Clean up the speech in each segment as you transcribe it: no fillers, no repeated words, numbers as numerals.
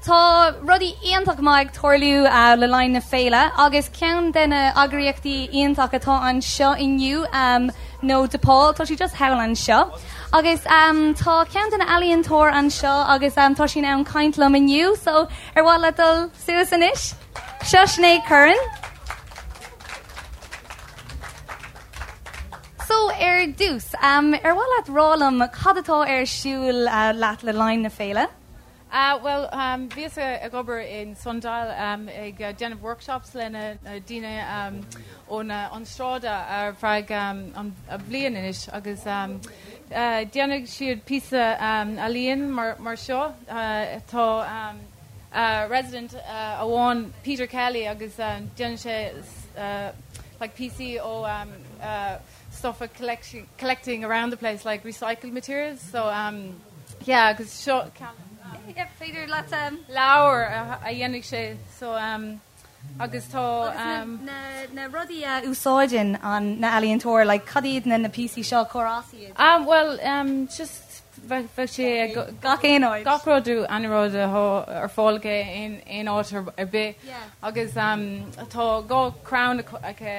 Tá rudaí iontach maith ag tarlú le linn na féile agus ceann de na eagraíochtaí iontach atá anseo inniu nó DePaul, tá sí just thall anseo. Agus tá ceann de na ealaíontóir anseo agus tá sí in ann caint liom inniu, so ar mhaith leat dul suas anois? Seo Sinéad Curran. So ar dtús, ar mhaith leat rá liom cad atá ar siúl leat le linn na féile? Bhuel, bhíos ag obair in Sundial ag déanamh workshops le na daoine ón an sráid ar feadh an bhliain anois agus déanfaidh siad píosa ealaíon mar seo. Tá resident amháin, Peter Kelly, agus déanann sé like píosaí ó stuff a collecting around the place like recycled materials so yeah agus seo ceann Yeah, féidir leat leabhar a dhéanfaidh sé so agus tá na na rudaí a úsáideann an na ealaíontóir like cad iad na na píosaí seo cár as iad? Bhuel just bheadh sé ag gach aon áit. Gach rud aon rud atá ar fáil aige aon áit ar bith agus tá dhá crann aici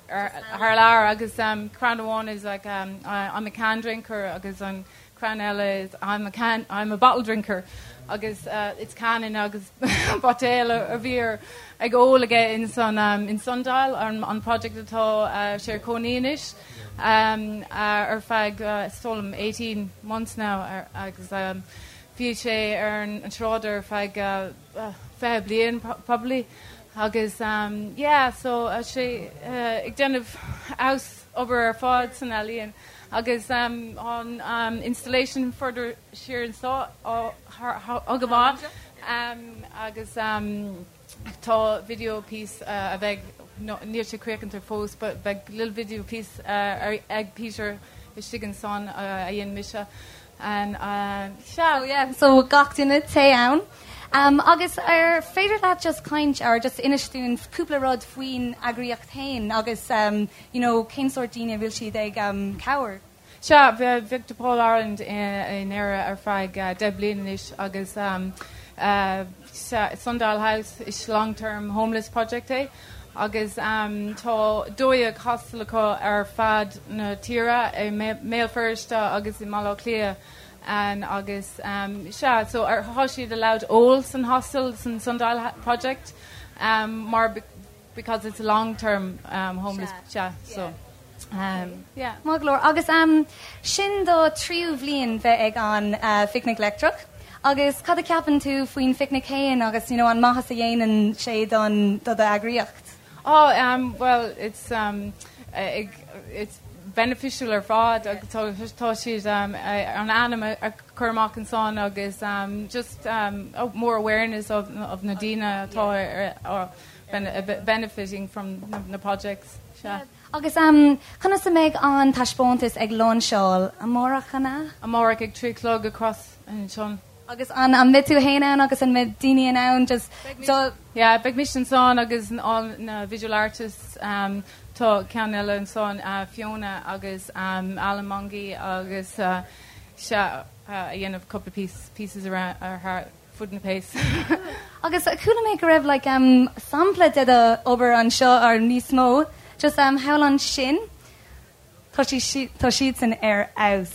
thar lear agus crann amháin is like I'm a can drinker agus an crann eile is I'm a can I'm a bottle drinker agus it's can agus buidéal a bhí ag ól aige in san in Sundial an project atá sé ar cónaí anois. ar feadh is dóigh liom 18 months now agus bhí sé ar an tsráid ar feadh 20 bliain probably agus yeah so sé ag déanamh house obair ar fad san ealaíon agus an installation further siar anseo á go maith agus Tá video piece a bheidh, níl sé críochnaithe fós, but beidh little video piece ag Peter istigh ansan a dhein mise and sea. Oh yeah, so gach duine téigh ann. Agus ar féidir leat just caint or just inis dúinn cúpla rud faoin eagraíocht féin agus you know cén sórt daoine a bhfuil siad ag cabhair? Sea, bhí DePaul Ireland in Éire ar feadh 10 bliain anois agus Sundial House is long term homeless project é agus tá 12 hostel acu ar fad na tíre i mBéal Feirste agus i mBaile Átha Cliath agus sea, so tá siad allowed ól san hostel san Sundial project mar because it's a long term homeless sea so yeah. Maith go leor. Agus sin do tríú bhliain bheith ag an Phicnic Leictreach agus cad a ceapann tú faoin phicnic féin agus you know an maitheas a dhéanann sé don do d'eagraíocht? Oh um well it's um it's beneficial ar fad agus tá siad um an ainm a chur amach ansan agus um just um more awareness of of na daoine atá ar benefiting from na projects. Sea. Agus conas a mbeidh an taispeántas ag lainseáil? Amárach, an ea? Amárach ag 3 a chlog across ansan. Agus an mbeidh tú féin ann agus an mbeidh daoine in ann just dul? Yeah, beidh mise ansan agus all na visual artists. Tá ceann eile ansan, Fiona agus Alan Mongey agus sea, a dhéanamh cúpla pieces around thar fud na place. Agus chuala mé go raibh like um sampla de do obair anseo or níos mó just um thall ansin tá sí tá siadsan ar fheabhas.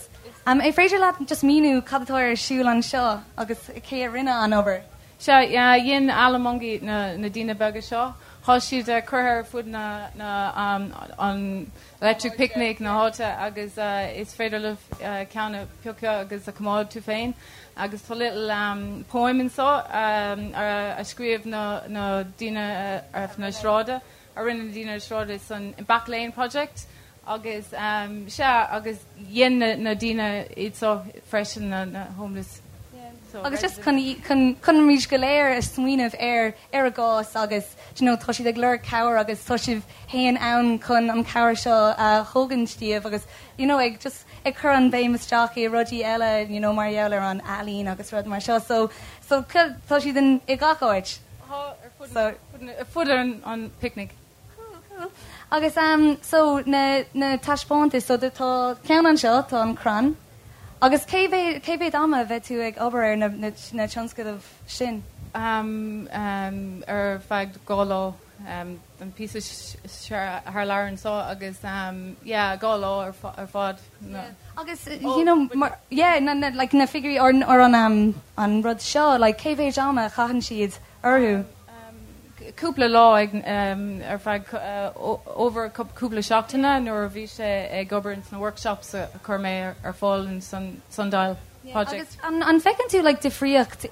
Um an féidir leat just míniú cad atá ar siúl anseo agus cé a rinne an obair? Sea, yeah, dhein Alan Mongey na na daoine beaga seo. Tá siad curtha ar fud na na um an Electric Picnic na háite agus is féidir libh ceann a piocadh agus a coimeád tú féin agus tá little poem anseo a scríobh na na daoine ar na sráide a rinne na daoine ar sráide san Back Lane Project agus sea agus dhein na na daoine iad seo freisin na na homeless so Agus just chun chun chun muid go léir a smaoineamh ar ar a gcás agus do you know tá siad ag lorg cabhair agus tá sibh féin ann chun an cabhair seo a thógaint díobh agus you know ag just ag cur an béim isteach i rudaí eile you know mar gheall ar an ealaín agus rud mar seo so so tá siad in i gach áit. Tá ar fud so ar fud an an picnic. Cool cool. Agus um so na na taispeántais so tá ceann anseo tá an crann. Agus cé mhéad cé mhéad ama a bheidh tú ag obair ar na na na tionscadail sin? Um um ar feadh 2 lá um an píosa thar lear anseo agus um yeah 2 lá ar ar fad. Yeah. Agus you know mar yeah na na like na figiúirí or or an um an rud seo like cé mhéad ama a chaitheann siad orthu? Cúpla lá ag ar feadh over cúpla seachtaine nuair a bhí sé ag obair ins na workshops a chuir mé ar fáil in Sundial Project. Agus an bhfeiceann tú like difríocht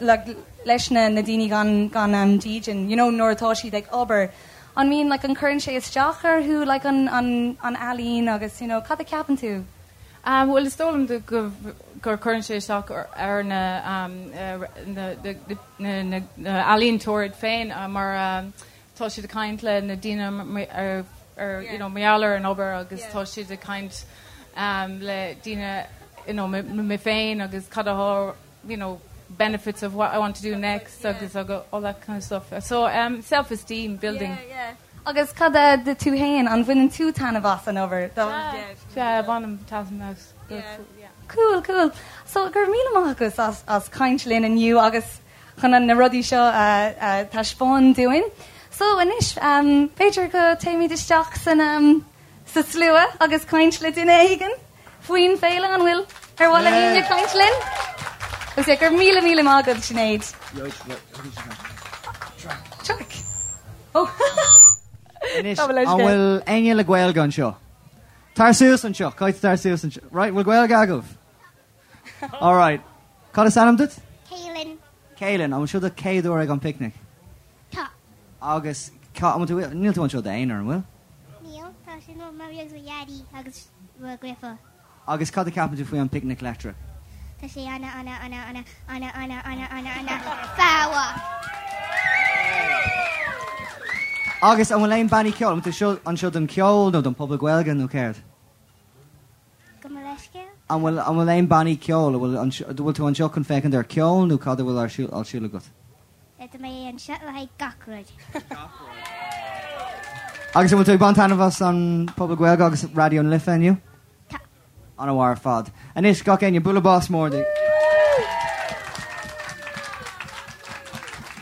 like leis na na daoine gan gan dídean you know nuair atá siad ag obair an mbíonn like an cuireann sé isteach orthu like an an an ealaín agus you know cad a ceapann tú? Bhuel, is dóigh liom go gur cuireann sé isteach ar na ealaíontóirí féin mar tá siad ag caint le na daoine ar you know mar gheall ar an obair agus tá siad ag caint le daoine you know mé féin agus cad atá you know benefits of what I want to do next agus all that kind of stuff. So self-esteem building. Yeah, yeah. Agus cad é tú féin, an bhaineann tú taitneamh as an obair? Sea, bainim taitneamh as. Cool, cool. So, go raibh míle maith agat as as caint linn inniu agus chun na rudaí seo a taispeáin dúinn. So, anois, b'fhéidir go téimid isteach san sa slua agus caint le duine éigin faoin féile, an bhfuil ar mhaith le éinne caint linn? Agus yeah, go raibh míle míle maith agat, Sinéad. Traic. Oh. Anois, an bhfuil éinne le Gaeilge anseo? Tar suas anseo, caithfidh tar suas anseo. Right, bhfuil Gaeilge agaibh? All right. Cad is ainm duit? Caelan. Caelan, an bhfuil seo do chéad uair ag an picnic? Tá. Agus cá, an bhfuil tú, níl tú anseo i d'aonar, an bhfuil? Níl, tá sin mo mhamaí agus mo dhaidí agus mo dheirfiúr. Agus cad a ceapann tú faoi an Picnic Leictreach? Tá sé ana ana ana ana ana ana ana ana ana ana Agus an bhfuil aon bannaí ceoil? An bhfuil tú seo anseo don cheol nó don phuball Gaeilge nó céard? Gabh mo leithscéal? An bhfuil an bhfuil aon bannaí ceoil? An bhfuil an bhfuil tú anseo chun féachaint ar ceol nó cad a bhfuil ar siúl ar siúl agat? Tá mé anseo le haghaidh gach rud. Agus an bhfuil tú ag baint taitneamh as an Phuball Gaeilge agus Raidió na Life inniu? Tá. An-mhaith ar fad. Anois, gach éinne, bualadh bos mór di.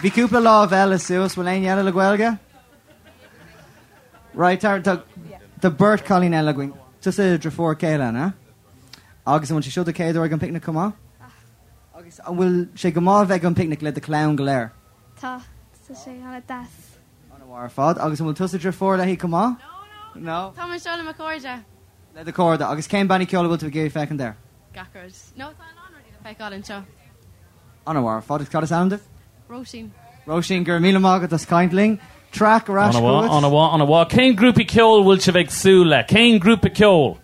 Bhí cúpla lámh eile suas, bhfuil éinne eile le Gaeilge? Right, tá tá tá beirt cailín eile againn. Tusa deirfiúr Caelan, eh? Agus an bhfuil sé seo do chéad uair ag an picnic chomh maith? Agus an bhfuil sé go maith a bheith ag an picnic le do chlann go léir? Tá, tá sé an-deas. An-mhaith ar fad. Agus an bhfuil tusa deirfiúr léi chomh maith? No, no. Tá mé anseo le mo chairde. Le do chairde. Agus cén bannaí ceoil a bhfuil tú ag iarraidh féachaint air? Gach rud. No, tá a lán rudaí le feiceáil anseo. An-mhaith ar fad. Agus cad is ainm duit? Róisín. Róisín, go raibh míle maith agat as caint linn. Traic ar ais An-mhaith, chugat. an-mhaith, an-mhaith. Cén grúpa ceoil bhfuil sibh ag súil le? Cén grúpa ceoil?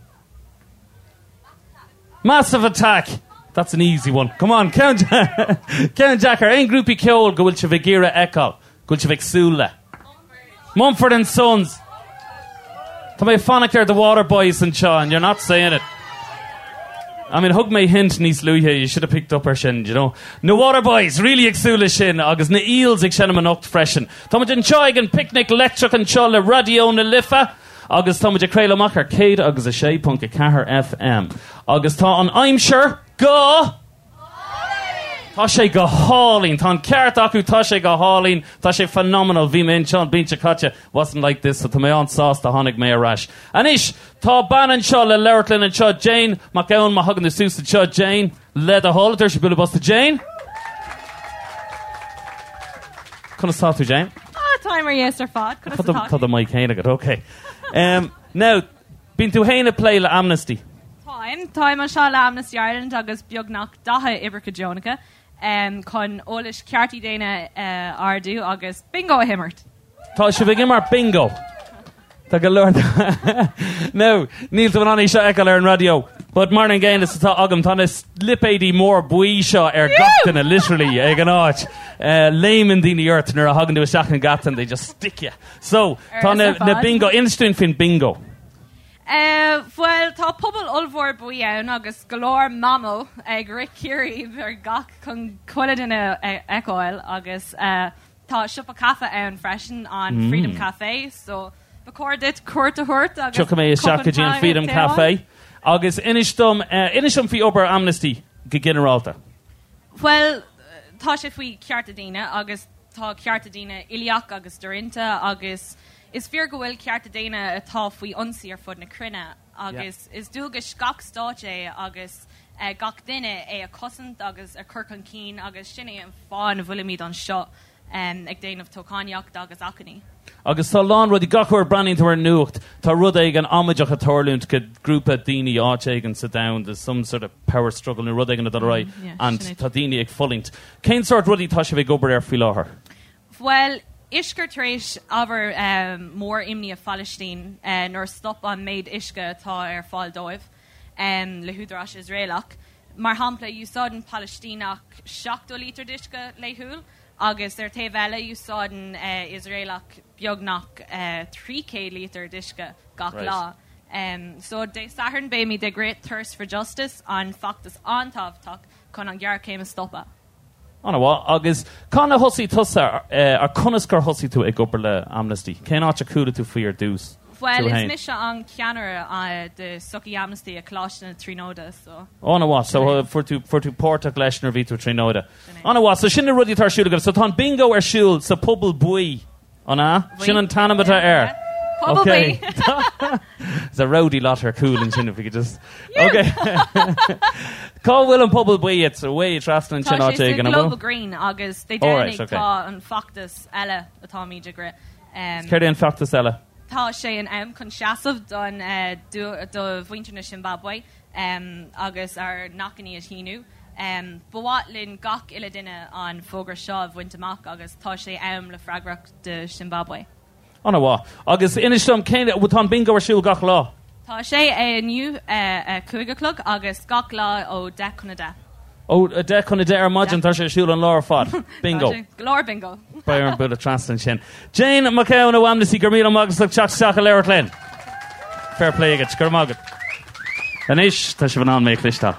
Massive Attack! That's an easy one. Come on, ceann ceann deacair. Aon grúpaí ceoil go bhfuil sibh ag iarraidh a fheiceáil, go bhfuil sibh ag súil le? Mumford and Sons. Tá mé ag fanacht ar The Waterboys anseo and you're not saying it. I mean, thug mé hint níos luaithe, you should have picked up ar sin, you know. Na Waterboys, really ag súil le sin, agus na Eels ag seinm anocht freisin. Táimid anseo ag an Picnic Leictreach anseo le Raidió na Life agus táimid ag craoladh amach ar 106.4 FM. Agus tá an aimsir go Tá sé go hálainn. Tá an ceart acu, tá sé go hálainn. Tá sé phenomenal. Bhí mé anseo an bhliain seo caite. Wasn't like this, so tá mé an-sásta tháinig mé ar ais. Anois, tá bean anseo le labhairt linn anseo, Jane Mac Gabhann, má thagann tú suas anseo, Jane, le do thoil, tabhair bualadh bos do Jane. Conas tá tú, Jane? Ah, táim ar dheis ar fad. Conas Tá atá tá do mic féin agat, ok. Um, now, Bíonn tú féin ag plé le Amnesty. Táim. Táim anseo le Amnesty Ireland agus beagnach 40 oibrithe deonacha chun eolas cearta daonna a ardú agus bingo a himirt. Tá sibh ag imirt bingo. Tá go leor Now, níl tú in ann é seo a fheiceáil ar an raidió, but mar an gcéanna is atá agam, tá na lipéidí mór buí seo ar gach duine, literally, ag an áit. Léimeann daoine ort nuair a thagann tú isteach an geata and they just stick you. So, tá na, na bingo, inis dúinn faoin bingo. Eh, bhuel, tá puball ollmhór buí ann agus go leor mamó ag rith ciaríb ar gach chun chuile duine a fheiceáil agus eh, tá siopa caife ann freisin, an Freedom Café, so ba chóir duit cuairt a thabhairt agus Tiocfaidh mé isteach go dtí an Freedom Café. Agus inis dom, inis dom faoi obair Amnesty go ginearálta. Bhuel, tá sé faoi chearta daoine agus tá cearta daoine uilíoch agus doroinnte agus is fíor go bhfuil cearta daonna atá faoi ionsaí ar fud na cruinne agus is dualgas gach stáit é agus gach duine é a chosaint agus a chur chun cinn agus sin é an fáth ina bhfuilimid anseo ag déanamh toghchánaíocht agus achainí. Agus tá a lán rudaí, gach uair a breathnaíonn tú ar an nuacht, tá rud éigin amaideach ag tarlúint go grúpa daoine áit éigin sa domhan, there's some sort of power struggle nó rud éigin ag dul ar aghaidh and tá daoine ag fulaingt. Cén sórt rudaí tá sibh ag obair air faoi láthair? Bhuel, uisce tar éis ábhar mór imní i Phalaistín nuair a stop an méid uisce atá ar fáil dóibh le húdaráis Iosraelach. Mar shampla, úsáideann Palaistíneach 70 lítear d'uisce laethúil agus ar taobh eile úsáideann Iosraelach beagnach 300 lítear d'uisce gach lá. So Dé Sathairn beimid ag rith Thirst for Justice, an feachtas an-tábhachtach chun an ghéarchéim a stopadh. An-mhaith. Agus cathain a thosaigh tusa, ar conas gur thosaigh tú ag obair le Amnesty? Cén áit a chuala tú faoi ar dtús? Bhuel, is mise an ceannaire de Sochaí Amnesty i Coláiste na Tríonóide, so. An-mhaith. So fuair tú, fuair tú páirteach leis nuair a bhí tú i Tríonóide. An-mhaith. So sin na rudaí atá ar siúl agaibh. So tá an bingo ar siúl sa Phuball Buí. An ea? Sin an t-ainm atá air. Puball Buí. There's a rowdy lot ar cúl ansin if we could just. Okay. Cá bhfuil an Puball Buí? It's away trasna ansin Tá áit sé sa éigin, an bhfuil? Global Green agus Dé Alright, Domhnaigh okay. tá an feachtas eile atáimid ag rith. Céard é an feachtas eile? Tá sé in am chun seasamh don do mhuintir na Siombáibe agus ár n-achainí a shíniú. Ba mhaith linn gach uile duine an fógra seo a bhaint amach agus tá sé am le freagracht do Siombáibe. An-mhaith. Agus inis dom, cén, tá an bingo ar siúl gach lá? Tá sé inniu a 5 a chlog agus gach lá ó 10 chun 10. Ó 10 chun 10 ar maidin, tá sé ar siúl an lá ar fad. Bingo. Tá sé. Go leor bingo. Beidh orm bualadh trasna ansin. Jane McKeown ó Amnesty, go raibh míle maith agat as ucht teacht isteach a labhairt linn. Fair play agat, go raibh maith agat. Anois, tá sibh in ann mé a chloisteáil.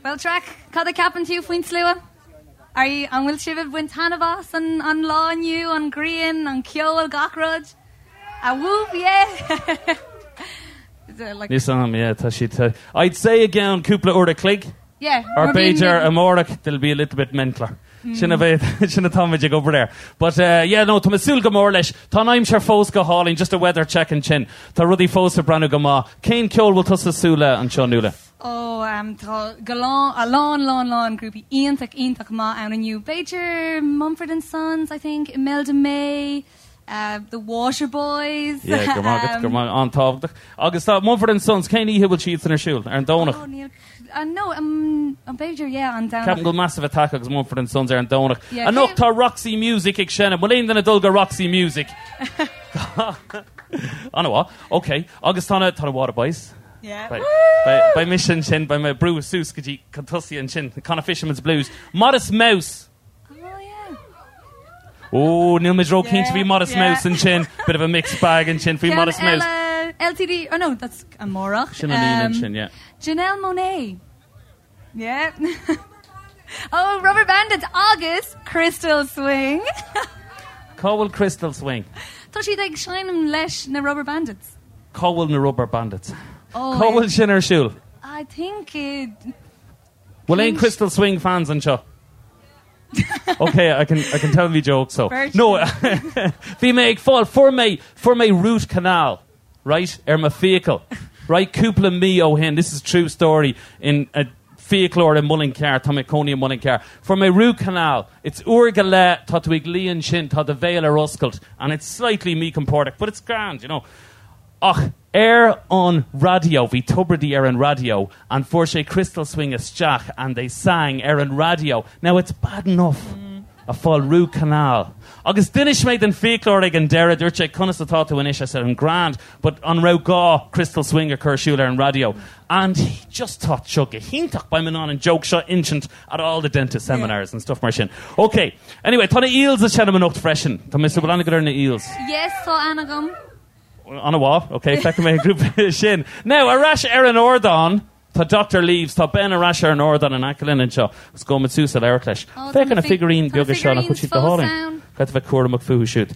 Bhuel, Traic, cad a ceapann tú faoin slua? Are you, an bhfuil sibh ag baint taitneamh as an, an lá inniu, an ghrian, an ceol, gach rud? A whoop, yeah! Is it like- Níos am, yeah, tá siad. tá- I'd say i gceann cúpla uair a chloig, Yeah, or mar bíonn b'fhéidir amárach, they'll be a little bit mentaler. Sin a bheidh, sin atáimid ag obair air. But uh, yeah, no, tá mé ag súil go mór leis. Tá an aimsir fós go hálainn, just a weather check ansin. Tá rudaí fós ag breathnú go maith. Cén ceol bhfuil tusa ag súil le anseo, Nuala? Ó, tá go lán, a lán, lán, lán grúpaí iontach, iontach maith ann inniu. B'fhéidir Mumford and Sons, I think, Imelda May, The Waterboys. Yeah, go raibh maith agat, go raibh maith, an-tábhachtach. Agus tá Mumford and Sons, cén oíche bhfuil siadsan ar siúl? Ar an Domhnach? Oh, níl, no, b'fhéidir, yeah, an Domhnach. Ceapaim go bhfuil Massive Attack agus Mumford and Sons ar an Domhnach. Yeah, Anocht tá Roxy Music ag seinm. Bhfuil aon duine ag dul go Roxy Music? An-mhaith, ok. Agus tá na, tá na Waterboys. Beidh mise ansin, beidh mé ag brú suas go dtí chun tosaigh ansin, Conna Fisherman's Blues. Modest Mouse! Ó, níl muid ró-chinnte faoi Modest Mouse ansin. Bit of a mixed bag ansin faoi Modest Mouse. LTD, oh no, that's amárach. Sin an Aoine ansin, yeah. Janelle Monáe. Yeah. Oh, Rubberbandits agus Crystal Swing. Cá bhfuil Crystal Swing? Tá siad ag seinm leis na Rubberbandits. Cá bhfuil na Rubberbandits? Oh, Cá bhfuil sin ar siúl? I think it... Bhfuil aon Crystal Swing fans anseo? Ok, I can, I can tell me jokes so. No, bhí mé ag fáil, fuair mé, fuair mé root canal, right, ar mo fiacail, right, cúpla mí ó shin, this is true story, in a fiaclóir i Muileann Cearr, tá mé i mo chónaí i Muileann Cearr, fuair mé root canal, it's uair go leith, tá tú ag luí ansin, tá do bhéal ar oscailt, and it's slightly míchompordach, but it's grand, you know. Ach ar an raidió, bhí Tubridy ar an raidió, and fuair sé Crystal Swing isteach, and they sang ar an raidió. Now it's bad enough a fáil root canal. Agus d'inis mé don fiaclóir ag an deireadh, dúirt sé conas atá tú anois, I said I'm grand, but an raibh gá Crystal Swing a chur ar siúl ar an raidió? And he just thought seo go hiontach, beidh mé in ann an joke seo insint at all the dentist seminars and stuff mar sin. Ok, anyway, tá na Eels ag seinm anocht freisin. Tá mé ag súil, bhfuil aithne agat ar na Eels? Yes, tá aithne agam. An-mhaith, ok, feicfidh mé an grúpa sin. Now, ar ais ar an ardán, tá Doctor Leaves, tá Ben ar ais ar an ardán in aice linn anseo, agus gabhfaidh muid suas a labhairt leis. Oh, Féach ar na figurín beaga seo, nach bhfuil siad go hálainn? Caithfidh bheith cúramach fúthu siúd.